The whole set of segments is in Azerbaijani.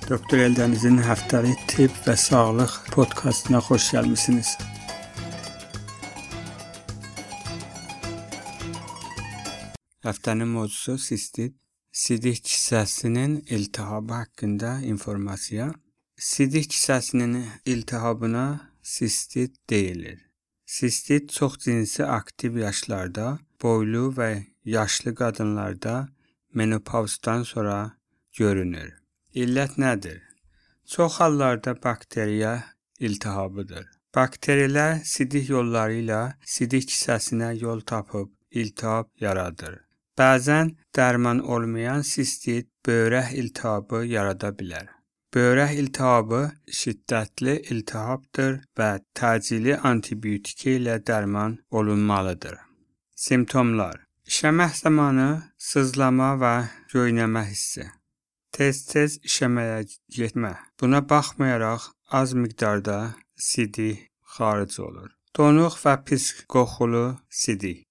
Doktor Eldənizin həftəlik tibb və sağlıq podkastına xoş gəlmisiniz. Həftənin mövzusu sistit. Sidik kisəsinin iltihabı haqqında informasiya. Sidik kisəsinin iltihabına sistit deyilir. Sistit çox cinsi aktiv yaşlarda, boylu və yaşlı qadınlarda menopavzdan sonra görünür. İllət nədir? Çox hallarda bakteriya iltihabıdır. Bakteriyələr sidik yolları ilə sidik kisəsinə yol tapıb iltihab yaradır. Bəzən dərman olmayan sistit böyrək iltihabı yarada bilər. Böyrək iltihabı şiddətli iltihabdır və təcili antibiotika ilə dərman olunmalıdır. Simptomlar: İşəmək zamanı sızlama və göynəmə hissi. Tez-tez işəməyə getmə. Buna baxmayaraq az miqdarda sidik xaric olur. Donuq və pis qoxulu sidik.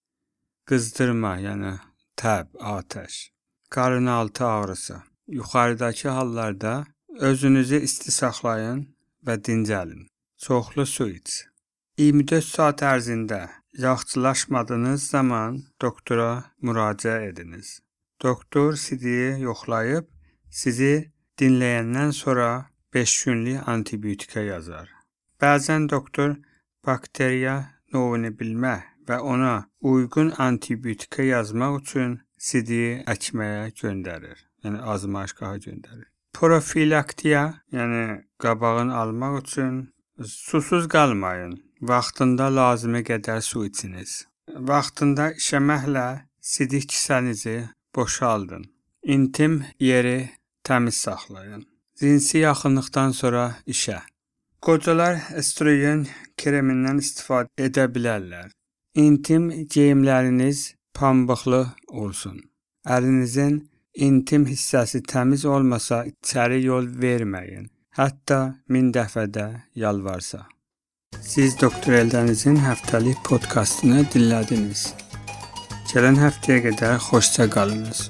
Qızdırma, yəni təb, atəş. Qarınaltı ağrısı. Yuxarıdakı hallarda özünüzü isti saxlayın və dincəlin. Çoxlu su iç. 24 saat ərzində yaxşılaşmadığınız zaman doktora müraciət ediniz. Doktor sidiyi yoxlayıb sizi dinləyəndən sonra 5 günlük antibiotika yazar. Bəzən doktor bakteriya növünü bilmək və ona uyğun antibiotika yazmaq üçün sidiyi əkməyə göndərir. Yəni azmaşgaha göndərir. Profilaktiya, yəni qabağını almaq üçün susuz qalmayın. Vaxtında lazımi qədər su içiniz. Vaxtında işəməklə sidik kisənizi boşaldın. İntim yeri təmiz saxlayın. Cinsi yaxınlıqdan sonra işə. Qocalar estrogen kremindən istifadə edə bilərlər. İntim geyimləriniz pambıqlı olsun. Əlinizin intim hissəsi təmiz olmasa içəri yol verməyin. Hətta 1000 dəfə də yalvarsa. Siz Doktor Eldənizin həftəlik podkastını dinlədiniz. Gələn həftəyə qədər xoşça qalınız.